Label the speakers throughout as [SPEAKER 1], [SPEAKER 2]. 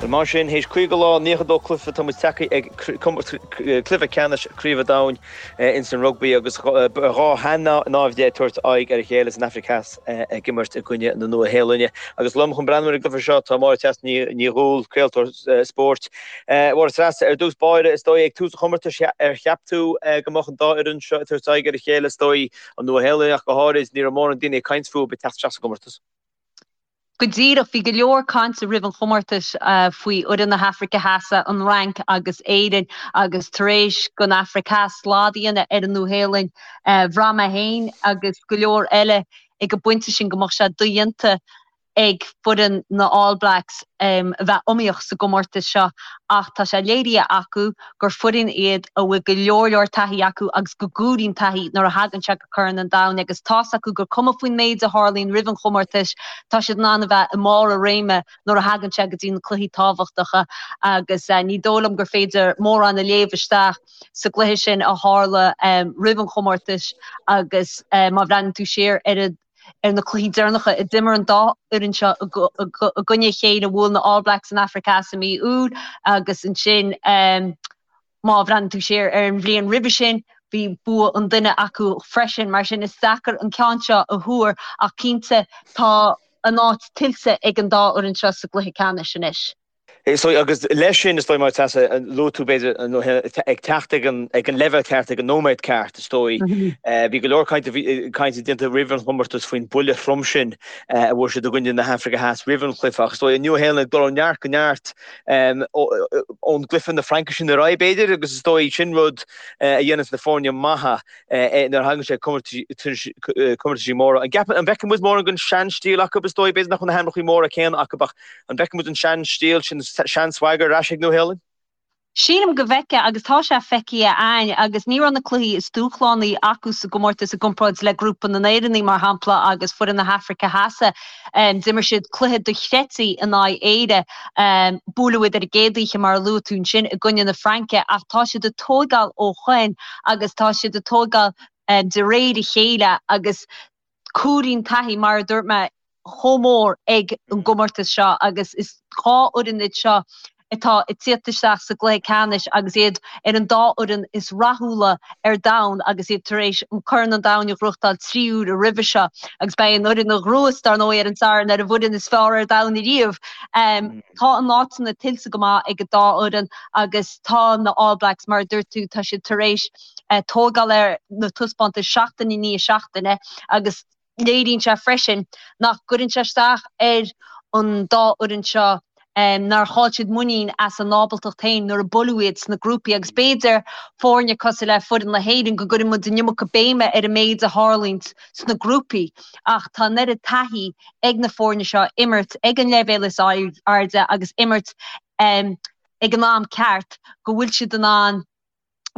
[SPEAKER 1] Bhuel mar sin, théis 50 lá, 92 cluiche, tá muid tagtha ag cluiche ceannais Craoibhe an Domhain ins an rugbaí agus dhá shean-naimhde ag tabhairt aghaidh ar a chéile san Afraic Theas ag imirt i gcoinne na Nua-Shéalainne. Agus liom chun breathnú ar an gcluiche seo tá Máire Treasa Ní Dhubhghaill, craoltóir spóirt. Máire Treasa, ar dtús báire, is dóigh ag tús an chomórtais ar cheap tú go mbeadh an dá fhoireann seo ag tabhairt aghaidh ar a chéile, is dóigh an Nua-Shéalainn ach go háirid, ní raibh mórán daoine ag caint fúthu ag teacht isteach sa gcomórtas.
[SPEAKER 2] Go díreach, bhí go leor cainte roimh an chomórtas faoi fhoireann na hAfraice Theas, an Fhrainc agus Éirinn agus tar éis don Afraic Theas slad a dhéanamh ar an Nua-Shéalainn, bhraith mé féin agus go leor eile ag an bpointe sin go mbeadh sé dodhéanta ag foireann na All Blacks a bheith iomaíoch sa gcomórtas seo ach tá sé léirithe acu gur foireann iad a bhfuil go leor leor taithí acu agus go gcomhaireann taithí nuair a thagann sé go Corn an Domhain agus tá's acu gur cuma faoin méid a tharlaíonn roimh an chomórtas, tá siad in ann a bheith i mbarr a réime nuair a thagann sé go dtí na cluichí tábhachtacha agus ní dóigh liom gur féidir mórán a léamh isteach sa gcluiche sin a tharla roimh an chomórtas agus má bhreathnaíonn tú siar ar an ar na cluichí deireanacha a d'imir an dá fhoireann seo i gcoinne a chéile, bhuail na All Blacks an Afraic Theas i mí Iúil agus ansin má bhreathnaíonn tú siar ar an bhliain roimhe sin, bhí bua an duine acu freisin. Mar sin is deacair an ceann seo a thuar ach cinnte tá a n-áit tuillte ag an dá fhoireann seo sa gcluiche ceannais anois.
[SPEAKER 1] Is dóigh, agus leis sin, is dóigh, Máire Treasa, luaigh tú, b'fhéidir, ag teacht ag an leibhéal ceart, ag an nóiméad ceart, is dóigh. Bhí go leor cainte déanta roimh an chomórtas faoin buille throm sin a bhfuair siad i gcoinne na hAfraice Theas roimh an chluiche, ach is dóigh, an Nua-Shéalainn ag dul ó neart go neart ón gcluiche na Fraince sin ar aghaidh, b'fhéidir, agus is dóigh, sin rud a dhéananns na foirne maithe. nuair a thagann sé comórtaisí móra. An gceapann, an bhfeicfidh muid mórán den sean-stíl acu, is dóigh, b'fhéidir nach bhfuil na hainmneacha móra céanna acu ach an bhfeicfidh muid an sean-stíl sin, sean-swagger ar ais ag Nua-Shéalainn?
[SPEAKER 2] Sílim go bhfeicfidh agus tá sé feicthe a'ainn agus ní raibh na cluichí is dúshlánaí acu sa gcomórtas i gcomparáid le grúpa na nÉireannaigh mar shampla agus foireann na hAfraice Theas. D'imir siad cluiche dochreidte in aghaidh Éire. Buaileadh iad ar an gcéad oíche mar a luaigh tú ansin i gcoinne na Fraince ach tá siad ag tóigeáil ó shoin agus tá siad ag tóigeáil de réir a chéile agus comhaireann taithí, mar a dúirt mé, chomh mór ag an gcomórtas seo agus is dhá fhoireann iad seo atá ag tíocht isteach sa gcluiche ceannais agus iad ar an dá fhoireann is rathúla ar domhan agus iad tar éis an Corn an Domhain a ghnóthachtáil 3 uaire roimhe seo agus beidh an fhoireann a ghnóthós, dar ndóigh, ar an Satharn ar an bhfoireann is fearr ar domhan ariamh. Tá a n-áiteanna tuillte go maith ag an dá fhoireann agus tá na All Blacks, mar a dúirt tú, tá siad tar éis tógáil ar na taispeántais seachtain i ndiaidh seachtaine agus léiríonn sé freisin nach gcuireann sé isteach ar an dá fhoireann seo nár chaill siad muinín as a n-ábaltacht féin nuair a buaileadh iad sna grúpaí agus b'fhéidir foirne cosúil le foireann na hÉireann go gcuireann muid an iomarca béime ar an méid a tharlaíonn sna grúpaí ach tá an oiread taithí ag na foirne seo imirt ag an leibhéal is airde agus imirt ag an am ceart go bhfuil siad in ann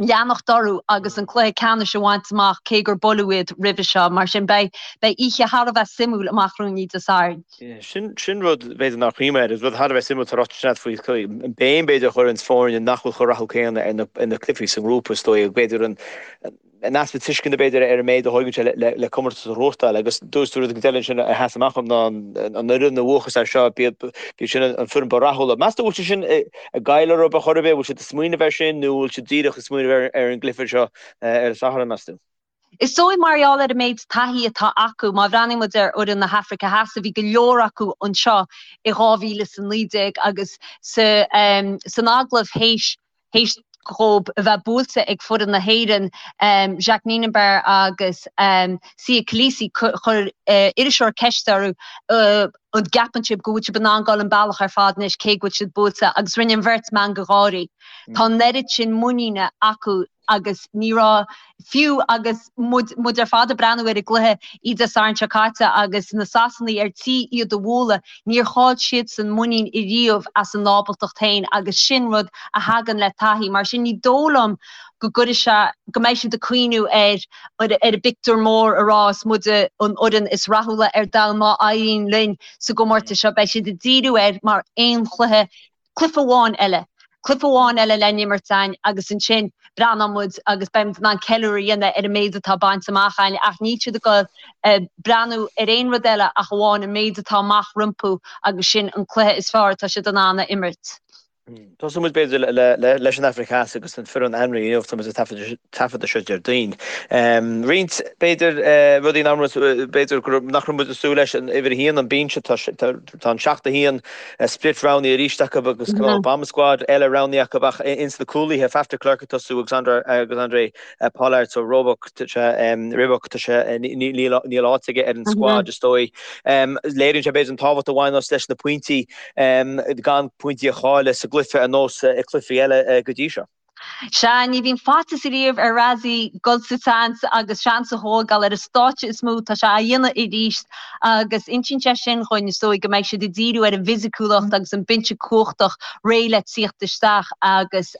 [SPEAKER 2] leanacht orthu agus an cluiche ceannais a bhaint amach cé gur buaileadh iad roimhe seo. Mar sin beidh beidh oíche thar a bheith suimiúil amach romhainn Dé Sathairn.
[SPEAKER 1] Sin sin rud b'fhéidir nár chuimhnigh mé air, is rud thar a bheith suimiúil atá ráite ansin faoi an béim b'fhéidir a chuireann foirne nach bhfuil chomh rathúil céanna ar na ar na cluichí sa ngrúpa is dóigh b'fhéidir an an easpa tuisceana b'fhéidir ar an méid a thóigeann sé le comórtas a ghnóthachtáil agus dúirt tú rud eile ansin a sheas amach dom ná an fhoireann a bhuachas air seo, b'iad sin an foireann ba rathúla. Meas tú an bhfuil sé sin ag goil orthu ar chor ar bith, bhfuil siad ag smaoineamh air sin nó bhfuil siad díreach ag smaoineamh ar an gcluiche seo ar an Satharn, meas tú?
[SPEAKER 2] Is dóigh mar gheall ar an méid taithí atá acu, má bhreathnaíonn muid ar fhoireann na hAfraice Theas, bhí go leor acu anseo i 2019 agus san agallamh théis théis dhóibh a bheith buailte ag foireann na hÉireann, Jacques Nienaber agus Siya Kolisi, chuir iriseoir ceist orthu an gceapann sibh go bhfuil sibh in ann dul an bealach ar fad anois cé go bhfuil sibh buailte agus rinne an bheirt meangadh gáirí. Tá an oiread sin muiníne acu agus ní raibh, fiú agus muid, muid ar fad ag breathnú ar an gcluiche oíche Dé Sathairn seo caite agus na Sasanaigh ar tí iad a bhualadh, níor chaill siadsan muinín ariamh as a n-ábaltacht féin agus sin rud a thagann le taithí. Mar sin ní dóigh liom go gcuirfidh sé, go mbeidh siad ag cuimhniú ar ar an bpictiúr mór a rá is muide an fhoireann is rathúla ar domhan má éiríonn linn sa gcomórtas seo. Beidh siad ag díriú air mar aon chluiche, cluiche amháin eile. Cluiche amháin eile le n-imirt againn agus ansin breathnóidh muid agus beidh muid in ann ceiliúradh a dhéanamh ar an méid atá bainte amach againn ach níl siad ag dul breathnú ar aon rud eile ach amháin an méid atá amach rompu agus sin an cluiche is fearr atá siad in ann a imirt.
[SPEAKER 1] Tosóidh muid b'fhéidir leis an Afraic Theas agus an foireann ainmnithe inniu, tá muid ag taifeadadh seo Déardaoin. Roinnt, b'fhéidir, rudaí nach raibh, b'fhéidir nach raibh muid ag súil leis, an uimhir a haon, an binse, tá an 7-1 split roghnaithe arís acu agus cineál bomb squad eile roghnaithe acu ach ins na cúlaithe, Faf de Klerk ag tosú agus Handré Pollard so Roebuck, tá sé, Ribbok, tá sé, níl áit aige ar an squad is dóigh. Léiríonn sé b'fhéidir an tábhacht a bhaineas leis na pointí, gan pointí a chailleadh sa gcluiche ar nós i cluichí eile go dtí seo.
[SPEAKER 2] Sea, ní bhíonn faitíos ariamh ar Rassie dul sa tseans agus seans a thógáil ar an stáitse is mó, tá sé á dhéanamh arís agus insíonn sé sin dhúinn, is dóigh, go mbeidh siad ag díriú ar an bhfisiciúlacht agus an binse cumhachtach réidh le tíocht isteach agus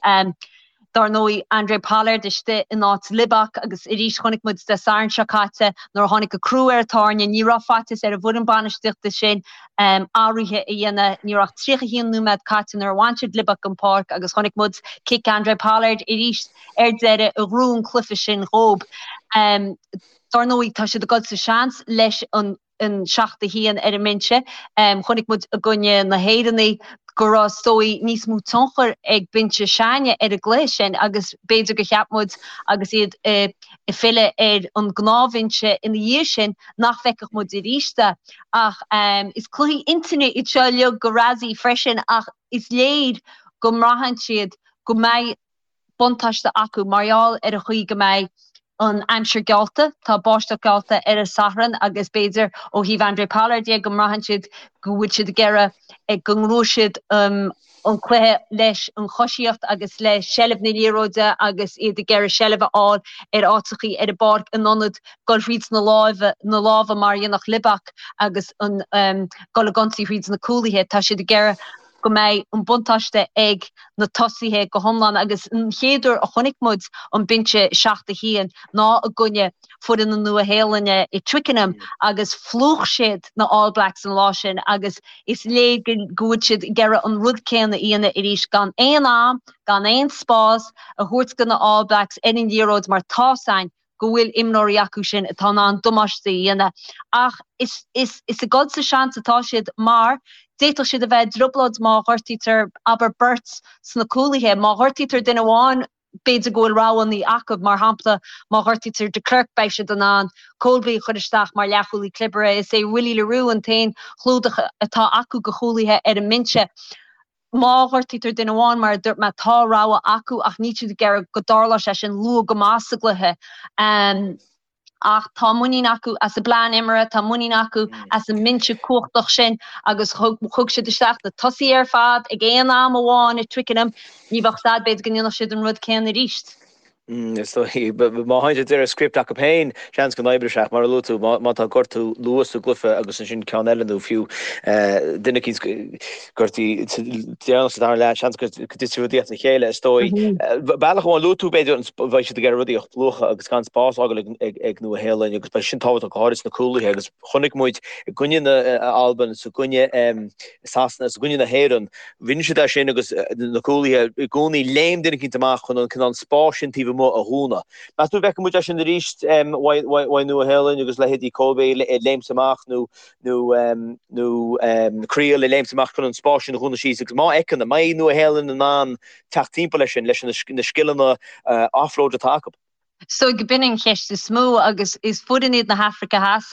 [SPEAKER 2] Dar ndóigh, Handré Pollard istigh in áit Libbok agus arís chonaic muid Dé Sathairn seo caite nuair a tháinig an crú ar an tairne, ní raibh faitíos ar an bhfoireann bainistíochta sin athruithe a dhéanamh. Ní raibh ach 31 nóiméad caite nuair a bhain siad Libbok den pháirc agus chonaic muid cic Handré Pollard arís ar deireadh a ghnóthaigh an cluiche sin dhóib. Dar ndóigh, tá siad ag dul sa seans leis an an 7-1 ar an mbinse. Chonaic muid i gcoinne na hÉireannaí go raibh is dóigh níos mó tionchar ag binse s'againne ar an gcluiche sin agus b'fhéidir gur cheap muid agus iad ag filleadh ar an ngnáthbhinse ina dhiaidh sin nach bhfeicfeadh muid arís é. Ach is cluichí intinne iad seo uilig do Rassie freisin ach is léir go mbraitheann siad go mbeidh buntáiste acu mar gheall ar an chaoi go mbeidh an aimsir geallta. Tá báisteach geallta ar an Satharn agus b'fhéidir ó thaobh Handré Pollard de go mbraitheann siad go bhfuil siad ag iarraidh go ngnóthóidh siad an cluiche leis an choisíocht agus le seilbh na liathróide agus iad ag iarraidh seilbh a fháil ar áiteachaí ar an bpáirc in ionad dul thríd na lámha na lámha mar a dhéanfadh Libbok agus an dul ag ionsaí thríd na cúlaithe. Tá siad ag iarraidh go mbeidh an buntáiste ag na tosaithe go hiomlán agus an chéad uair a chonaic muid an binse 7-1 ná i gcoinne foireann na Nua-Shéalainne i Twickenham agus phlúch siad na All Blacks an lá sin agus is léir go bhfuil siad ag iarraidh an rud céanna a dhéanamh arís gan aon am, gan aon spás a thabhairt do na All Blacks ar an liathróid mar tá's a'inn go bhfuil imreoirí acu sin atá in ann damáiste a dhéanamh ach is is is ag dul sa seans atá siad mar d'fhéadfadh siad a bheith i dtrioblóid má ghortaítear, abair, beirt sna cúlaithe. Má ghortaítear duine amháin, b'fhéidir go bhfuil roghanna acu, mar shampla, má ghortaítear de Klerk beidh siad in ann Kolbe a chur isteach mar leathchúlaí clibirte. Is é Willie le Roux an t-aon chlúdach atá acu do chúlaithe ar an mbinse. Má ghortaítear duine amháin, mar a dúirt mé, tá rogha acu ach níl siad ag iarraidh go dtarlódh sé sin luath go maith sa gcluiche. Ach tá muinín acu as a bplean imeartha, tá muinín acu as an mbinse cumhachtach sin agus thug siad isteach na tosaithe ar fad ag aon am amháin i Twickenham. Ní bheadh a fhios a'd, b'fhéidir go ndéanfadh siad an rud céanna arís.
[SPEAKER 1] Is dóigh, má théann siad de réir script acu féin, seans go n-oibreoidh sé ach mar a luaigh tú, má tá gortú luath sa gcluiche agus ansin ceann eile nó fiú duine eicínt gortaithe deireanach sa dara leath, seans go dtitfidh rudaí as a chéile, is dóigh. Bealach amháin, luaigh tú b'fhéidir beidh siad ag iarraidh rudaí a phlúchadh agus gan spás a fhágáil ag Nua Shéalainn agus beidh sin tábhachtach go háirid sna cúlaithe agus chonaic muid i gcoinne na Alban, is i gcoinne Sasana, is i gcoinne na hÉireann, Rinne siad é sin agus na cúlaithe i gcónaí léim duine eicínt amach chun an cineál spáis sin taobh amuigh a dhúnadh. Meas tú an bhfeicfidh muid é sin arís uaidh Nua Shéalainn agus leithéidí Kolbe ag léimt amach nó nó nó Kriel ag léimt amach chun an spás sin a dhúnadh síos agus má fheiceann, an mbeidh Nua Shéalainn in ann teacht timpeall leis sin, leis na scileanna offload atá acu?
[SPEAKER 2] Is dóigh go b'in an cheist is mó agus is foireann iad na hAfraice Theas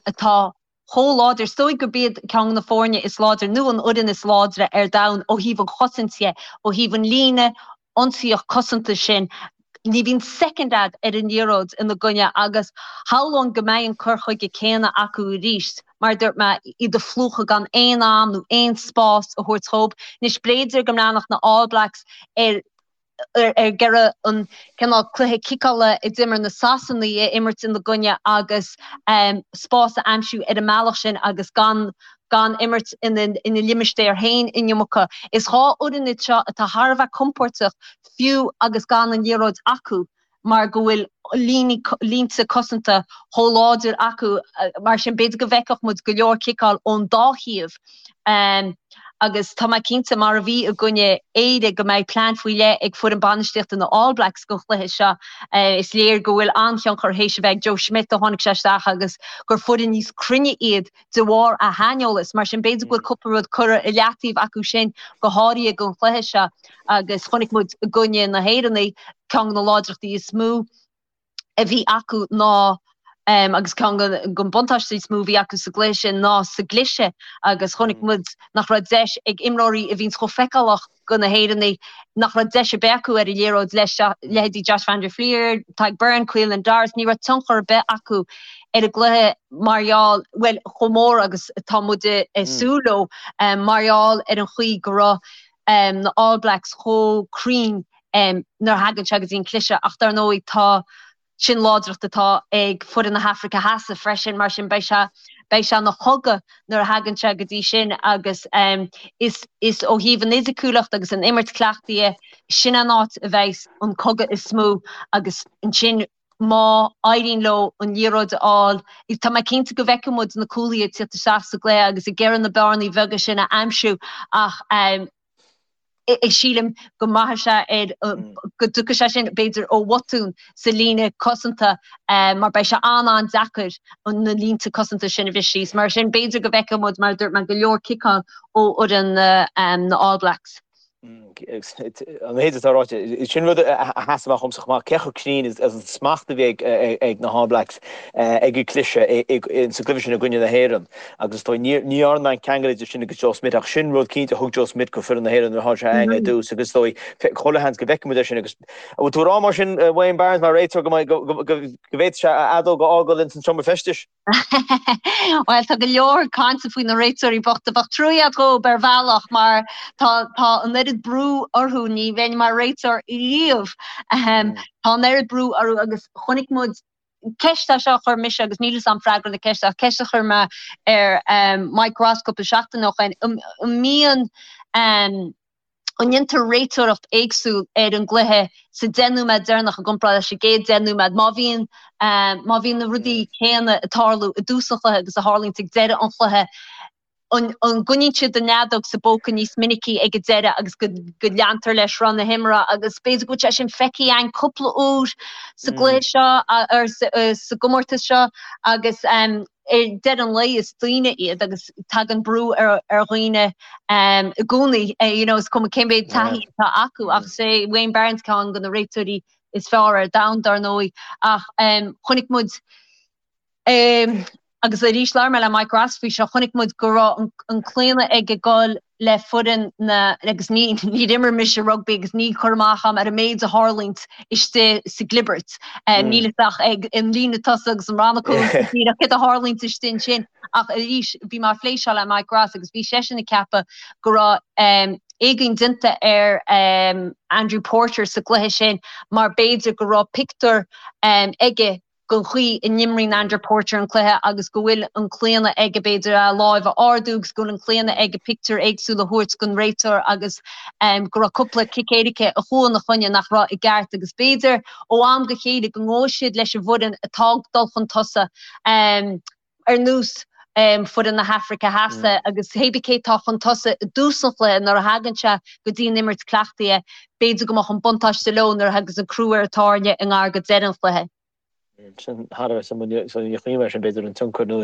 [SPEAKER 2] atá chomh láidir. Is dóigh gurb iad ceann de na foirne is láidre, nó an fhoireann is láidre ar domhan ó thaobh an chosaint dhe, ó thaobh an líne ionsaíoch cosanta sin. Ní bhíonn soicind a'd ar an liathróid ina gcoinne agus shamhlóinn go mbeidh an cur chuige céanna acu arís, mar a dúirt mé, iad a phlúchadh gan aon am nó aon spás a thabhairt dhóibh. Anois, b'fhéidir go mbreathnódh na All Blacks ar ag iarraidh an cineál cluiche ciceála a d'imir na Sasanaigh a imirt ina gcoinne agus spás a aimsiú ar an mbealach sin agus gan gan imirt ina ina limistéar féin an iomarca. Is dhá fhoireann iad seo atá thar a bheith compóirteach fiú agus gan an liathróid acu mar go bhfuil línte cosanta chomh láidir acu. Mar sin b'fhéidir go bhfeicfeadh muid go leor ciceáil ón dá thaobh. Agus tá mé cinnte, mar a bhí i gcoinne Éire, go mbeidh plean faoi leith ag foireann bainistíochta na All Blacks don chluiche seo. Is léir go bhfuil an-thionchar théis a bheith ag Joe Schmidt ó tháinig sé isteach agus gur foireann níos cruinne iad de bharr a shaineolas. Mar sin, b'fhéidir go bhfuil cúpla rud curtha i leataobh acu sin, go háirithe don chluiche seo. Agus chonaic muid i gcoinne na hÉireannaigh, ceann de na láidreachtaí is mó, a bhí acu ná, agus ceann den buntáistí is mó a bhí acu sa gcluiche sin ná sa gcliseadh agus chonaic muid nach raibh deis ag imreoirí a bhíonns chomh feiceálach go na hÉireannaigh, nach raibh deis ar bith acu ar an liathróid leis, leithéidí Josh van der Flier, Tadhg Beirne, Caelan Doris, ní raibh tionchar ar bith acu ar an gcluiche mar gheall, bhuel, chomh mór agus atá muid ag súil leo, mar gheall ar an chaoi go raibh na All Blacks chomh cruinn nuair a thagann sé go dtí an cliseadh ach dar ndóigh tá, sin láidreacht atá ag foireann na hAfraice Theas freisin, mar sin beidh sé, beidh sé ina chogadh nuair a thagann sé go dtí sin agus is, is ó thaobh an fhisiciúlacht agus an imirt cleachtaithe, sin an áit a bheidhs an cogadh is mó agus ansin má éiríonn leo an liathróid a fháil, tá mé cinnte go bhfeicfidh muid na cúlaithe ag tíocht isteach sa gcluiche agus ag iarraidh na bearnaí bheaga sin a aimsiú ach sílim go mbraithfidh sé ar, go dtiocfaidh sé sin b'fhéidir ó bhotún sa líne cosanta mar beidh sé an-an-deacair na línte cosanta sin a bhriseadh síos. Mar sin b'fhéidir go bhfeicfidh muid, mar a dúirt mé, go leor ciceáil ó fhoireann na All Blacks.
[SPEAKER 1] An méid atá ráite, sin rud a sheas amach dhomsa chomh maith, cé chomh cruinn is an smacht a bhí ag na hAll Blacks ag an gcliseadh sa gcluiche sin i gcoinne na hÉireann. Agus is dóigh, ní dhearna mé an ceangal idir sin agus Joe Schmidt ach sin rud cinnte a thug Joe Schmidt go foireann na hÉireann nuair a tháinig sé againn ar dtús agus is dóigh, chuile sheans go bhfeicfidh muid é sin agus an bhfuil tú ag rá mar sin Wayne Barnes mar réiteoir go bhféadfadh sé a fheadóg a fhágáil ins an seomra feistis?
[SPEAKER 2] Bhuel, tá go leor cainte faoi na réiteoirí bochta. Bheadh trua agat dhóibh ar bhealach mar tá tá an oiread brú orthu, ní bheinn mar réiteoir riamh. Tá an oiread brú orthu agus chonaic muid, ceist é seo a chuir mise agus níl fhios a'm freagra na ceiste ach ceist a chuir mé ar Mike Ross cúpla seachtain ó shoin, an mbíonn, an ndéantar réiteoireacht éagsúil ar an gcluiche sa 10 nóiméad deireanach i gcomparáid leis an gcéad 10 nóiméad, má bhíonn, má bhíonn na rudaí céanna ag tarlú i dtús an chluiche agus a tharlaíonns ag deireadh an chluiche, an gcoinníonn siad an fheadóg sa bpóca níos minicí ag an deireadh agus go leantar le sruth na himeartha agus b'fhéidir go bhfuil sé sin feicthe againn cúpla uair sa gcluiche seo or sa gcomórtas seo agus ar deireadh an lae is daoine iad agus tagann brú ar dhaoine i gcónaí you know is cuma cé mhéad taithí atá acu ach is é Wayne Barnes ceann de na réiteoirí is fearr ar domhan dar ndóigh ach chonaic muid Agus arís, labhair mé le Mike Ross faoi seo, chonaic muid go raibh an claonadh aige dul le foireann na, agus ní, níor imir mise rugbaí agus níl cur amach agam ar an méid a tharlaíonns istigh sa gclibirt. Níl fhios ach ag an líne tosaigh agus an rannach cúil díreach céard a tharlaíonns istigh ansin. Ach arís, bhí mé ag plé seo le Mike Ross agus bhí seisean ag ceapadh go raibh éagaoin déanta ar Andrew Porter sa gcluiche sin mar b'fhéidir go raibh pictiúr aige den chaoi a n-imríonn Andrew Porter an cluiche agus go bhfuil an claonadh aige b'fhéidir a láimh a ardú agus go bhfuil an claonadh aige pictiúr éagsúil a thabhairt don réiteoir agus go raibh cúpla cic éirice a chuaigh ina choinne nach raibh i gceart agus b'fhéidir ó am go chéile go ngabhfaidh siad leis an bhfoireann atá ag dul chun tosaigh. Ar nós foireann na hAfraice Theas agus hébí cé tá chun tosaigh i dtús an chluiche nuair a thagann sé go dtí an imirt cleachtaithe, b'fhéidir go mbeadh an buntáiste leo nuair a thagas an crú ar an tairne i ngar go deireadh an chluiche.
[SPEAKER 1] Sin thar a bheith suimiúil, so ní chuimhin mar sin b'fhéidir an tionchar nó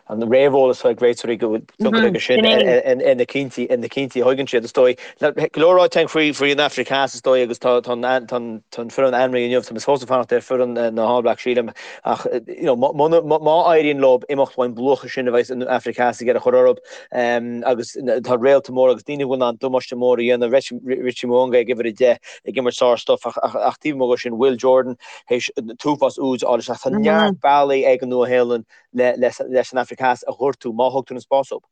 [SPEAKER 1] an réamheolas atá ag réiteoirí go bhfuil tionchar aige sin ar na cinntí ar na cinntí a thugann siad is dóigh. Go leor ráite againn faoi faoi an Afraic Theas is dóigh agus tá tá an tá an foireann ainmnithe inniu, tá mé fós ag fanacht ar foireann na All Blacks sílim. Ach you know má éiríonn leo imeacht ón bplúchadh sin a bheidh an Afraic Theas ag iarraidh a chur orthu agus tá réalta mór agus daoine a bhfuil in ann damáiste mór a dhéanamh, Richie Mo'unga ag uimhir 10 ag imirt sár-stuif ach taobh amuigh de sin Will Jordan théis an t-uafás úid a fháil isteach. Tá neart bealaí ag an Nua-Shéalainn leis an Afraic Theas a ghortú má thugtar an spás dóibh.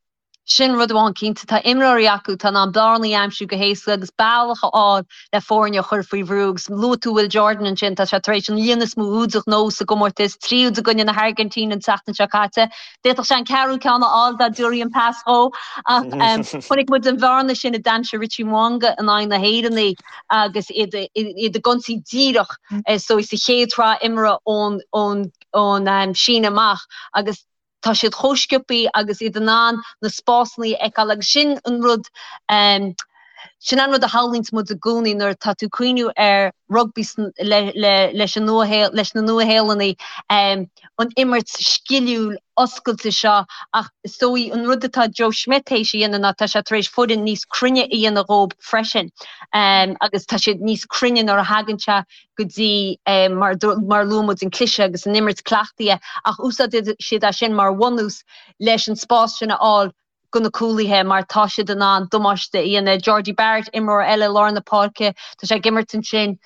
[SPEAKER 2] Sin rud amháin cinnte, tá imreoirí acu atá in ann bearnaí a aimsiú go héasca agus bealach a fháil le foirne a chur faoi bhrú. Agus luaigh tú Will Jordan ansin, tá sé tar éis an líon is mó úd a ghnóthú sa gcomórtas, 3 úd i gcoinne na hAirgintíne an tseachtain seo caite. D'fhéadfadh sé an ceathrú ceann a fháil dá dtabharfaí an pas dhó. Ach chonaic muid an bhearna sin a d'aimsigh Richie Mo'unga in aghaidh na hÉireannaí agus iad ag ionsaí díreach is dóigh sa chéad sraith imeartha ón síneadh amach agus. Tá siad chomh sciobthaí agus iad in ann na spásanna a fheiceáil agus sin an rud, sin an rud a shamhlaíonns muid i gcónaí nuair atá tú ag cuimhniú ar rugbaí leis an Nua, leis na Nua-Shéalannaigh, an imirt sciliúil oscailte seo ach is dóigh an rud atá Joe Schmidt théis a dhéanamh ná tá sé tar éis foireann níos cruinne a dhéanamh dhóib freisin agus tá siad níos cruinne nuair a thagann sé go dtí mar mar luaigh muid an cliseadh agus an imirt cleachtaithe ach úsáideann siad é sin mar bhunús leis an spás sin a fháil go na cúlaithe mar tá siad in ann damáiste a dhéanamh. Jordie Barrett, imreoir eile i lár na páirce, tá sé ag imirt ansin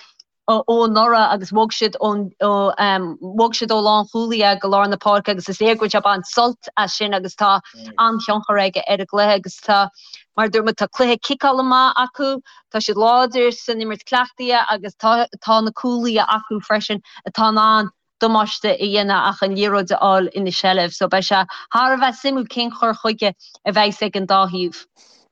[SPEAKER 2] ó anuraidh agus bhog siad ón bhog siad ó lánchúlaí go lár na páirce agus is léir go bhfuil sé ag baint sult as sin agus tá an-thionchar aige ar an gcluiche agus tá mar a dúirt muid tá cluiche ciceála maith acu, tá siad láidir san imirt cleachtaithe agus tá tá na cúlaithe acu freisin atá in ann damáiste a dhéanamh ach an liathróid a fháil ina seilbh. So beidh sé thar a bheith suimiúil cén chur chuige a bheidhs ag an dá thaobh.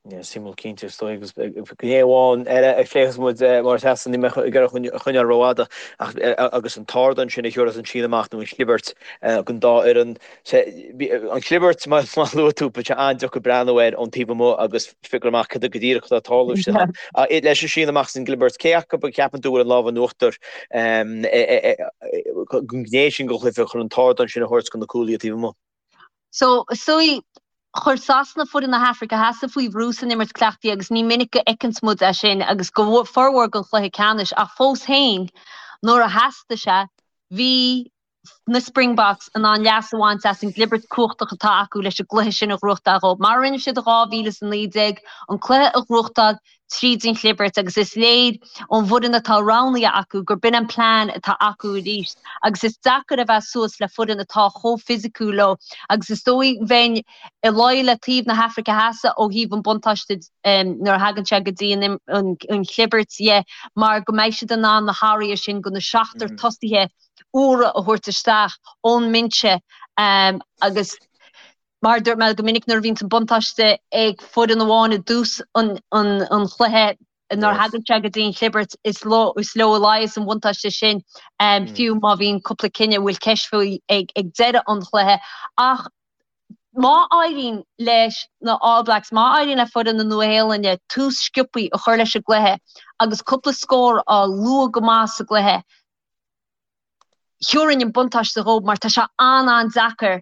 [SPEAKER 1] Yeah, suimiúil cinnte is dóigh agus gné amháin eile a phléifeas muid mar a Treasa níl mé ag iarraidh a choinneáil rófhada ach agus an t-ardán sin a thiúrfas an síneadh amach nó an chlibirt don dá fhoireann. An chlibirt mar a luaigh tú beidh sé an-deacair breathnú air ón taobh amuigh agus figure amach cad é go díreach atá ag tarlú istigh ann. Leis an síneadh amach is an gclibirt, cé acu a cheapann tú bhfuil an lámh in uachtar don ghné sin den chluiche chun an t-ardán sin a thabhairt do na cúlaithe taobh amuigh?
[SPEAKER 2] So, is dóigh, chuir Sasana foireann na hAfraice Theas faoi bhrú san imirt cleachtaithe agus ní minic go fheiceanns muid é sin agus go formhór den chluiche ceannais ach fós féin, nuair a theastaigh sé, bhí na Springboks in ann leas a bhaint as an gclibirt cumhachtach atá acu leis an gcluiche sin a ghnóthachtáil dhóibh. Mar a rinne siad i 2019, an cluiche a ghnóthachtáil tríd an chlibirt agus is léir ón bhfoireann atá roghnaithe acu gur b'in an plean atá acu arís agus is deacair a bheith suas le foireann atá chomh fisiciúil leo agus is dóigh bheinn ag luí le taobh na hAfraice Theas ó thaobh an buntáiste nuair a thagann sé go dtí an chlibirt dhe mar go mbeidh siad in ann na hathruithe sin go na seachtar tosaithe úra a thabhairt isteach ón mbinse agus Mar a dúirt mé go minic nuair a bhíonns an buntáiste ag foireann amháin i dtús an chluiche, nuair a thagann sé go dtí an chlibirt, is leo a luíos an bhuntáiste sin, fiú má bhíonn cúpla cinneadh a bhfuil ceist faoi ag deireadh an chluiche. Ach má éiríonn leis na All Blacks, má éiríonn le foireann na Nua-Shéalainne tús sciobthaí a chur leis an gcluiche agus cúpla scór a fháil luath go maith sa gcluiche, Thiúrfainn an buntáiste dhóibh mar tá sé an-an-deacair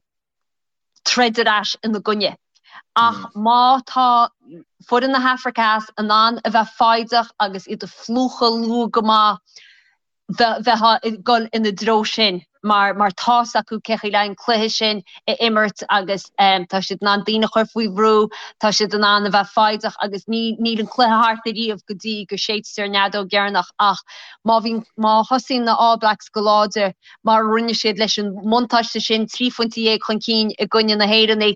[SPEAKER 2] troid ar ais ina gcoinne. Ach má tá foireann na hAfraice Theas in ann a bheith foighdeach agus iad a phlúchadh luath go maith, bheifeá ag dul ina dtreo sin mar mar tá's acu cé chaoi le an cluiche sin a imirt agus tá siad in ann daoine a chur faoi bhrú, tá siad in ann a bheith foighdeach agus ní níl an cluiche thart ariamh go dtí go séidtear an fheadóg dheireanach ach má bhíonn má thosaíonn na All Blacks go láidir mar a rinne siad leis an mbuntáiste sin, 13 phointe chun cinn i gcoinne na hÉireann,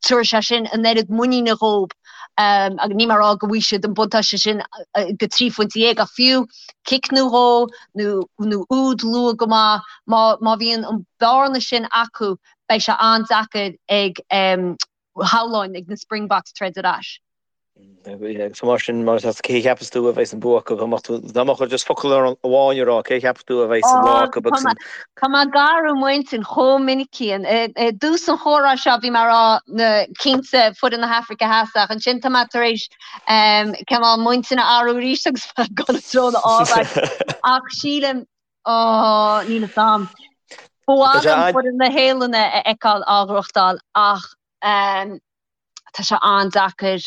[SPEAKER 2] tabharfaidh sé sin an oiread muiníne dhóibh agus níl mé ag rá go bhfaighidh siad an buntáiste sin go 13 phointe ach fiú cic nó dhó nó úd luath go maith, má bhíonn an bearna sin acu beidh sé an-deacair ag shamhlóinn ag na Springboks troid ar ais.
[SPEAKER 1] So mar sin, mar cé a cheapas tú a bheidh an bua acu? Dá mbeadh ort just focal amháin a rá, cé a cheapas tú a bheidh an lá acu
[SPEAKER 2] agus an. Tá mé ag athrú m'intinn chomh minic Cian. I dtús an chomhrá seo bhí mé ag rá na cinnte foireann na hAfraice Theas ach ansin tá mé tar éis cineál m'intinn a athrú arís agus ag dul i dtreo na All Blacks. Ach sílim, ó, níl fhios a'm. Ba mhaith liom foireann na Séalainne a fheiceáil á ghnóthachtáil ach Tá sé an-deacair.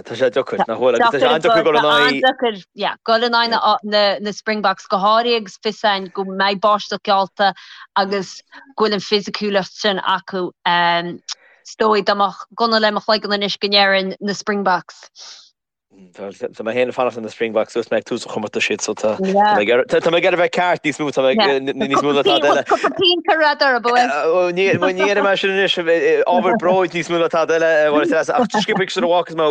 [SPEAKER 1] Tá sé deacair, nach bhfuil? Agus tá sé an-deacair dul in aghaidh.
[SPEAKER 2] An-deacair, yeah, dul in aghaidh na Springboks go háirithe agus fios a'inn go mbeidh báisteach geallta agus go bhfuil an fisiciúlacht sin acu. Is dóigh dá mbeadh gunna le mo chloigeann anois go ndéarfainn na Springboks.
[SPEAKER 1] Tá mé féin ag fanacht le na Springboks dúirt mé ag tús an chomórtais iad so tá mé ag iarraidh bheith ceart níos mó tá mé níos mó ná tada eile.
[SPEAKER 2] Cúpla punt ar radar ab
[SPEAKER 1] ea? Ní dhéanfaidh mé sin anois ábhar bróid níos mó ná tada eile ach sciobtha sula bhfágfas mé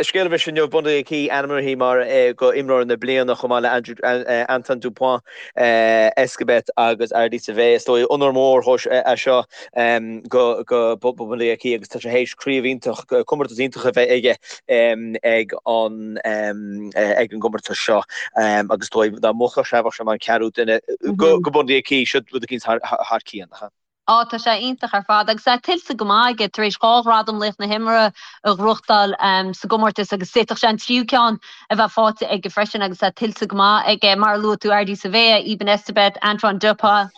[SPEAKER 1] scéal a bhris inniu Bundee Aki ainmnithe mar go imreoir na bliana chomh maith le Andrew Antoine Dupont Escabet agus Ardie Savea is dóigh onóir mór é seo go go Bundee Aki agus tá sé théis craobh iontach comórtas iontach a bheith aige ag an ag an gcomórtas seo agus dóigh dá mbuafadh sé bheadh sé mar an ceathrú duine go go Bundee Aki seo rud eicínt thar thar cionn.
[SPEAKER 2] Á, tá sé iontach ar fad agus é tuillte go maith aige tar éis 2 ghradam Laoch na hImeartha a ghnóthachtáil sa gcomórtas agus d'fhéadfadh sé an tríú ceann a bheith faighte aige freisin agus é tuillte go maith aige. Mar a luaigh tú, Ardie Savea, Eben Etzebeth, Antoine Dupont,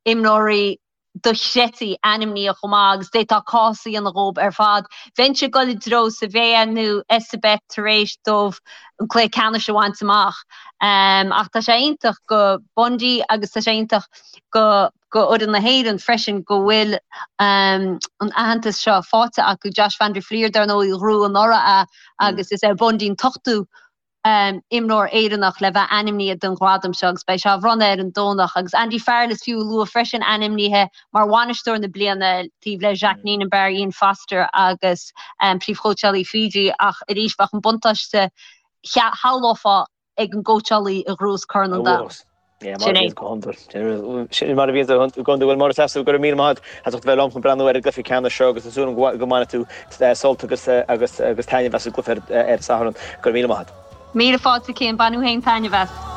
[SPEAKER 2] imreoirí dochreidte ainmnithe chomh maith agus d'fhéadfá cás a dhéanamh dhóibh ar fad. Bheinnse ag dul i dtreo Savea nó Etzebeth tar éis dóibh an cluiche ceannais a bhaint amach. Ach tá sé iontach do Bundee agus tá sé iontach go go fhoireann na hÉireann freisin go bhfuil an aitheantas seo faighte acu. Josh van der Flier dar ndóigh a ghnóthaigh anuraidh é agus is é Bundee an t-ochtú imreoir Éireannach le bheith ainmnithe don ghradam seo agus beidh sé á bhronnadh ar an Domhnach. Agus Andy Farrell is fiú a lua freisin ainmnithe mar bhainisteoir na bliana taobh le Jacques Nienaber, Ian Foster agus príomhchóitseálaí Fiji ach arís bheadh an buntáiste shamhlófá ag an gcóitseálaí a ghnóthós Corn an Domhain.
[SPEAKER 1] Yeah, mar a bhíonn go hiondúil. Sin mar a bhíonn go hiondúil. Bhuel, Máire Treasa, go raibh míle maith agat as ucht a bheith liom chun breathnú ar an gcluiche ceannais seo agus tá súil agam go mbainfidh tú sult agus agus agus taitneamh as an gcluiche ar an Satharn. Go raibh míle maith agat.
[SPEAKER 2] Míle fáilte, Cian. Bain tú féin taitneamh as.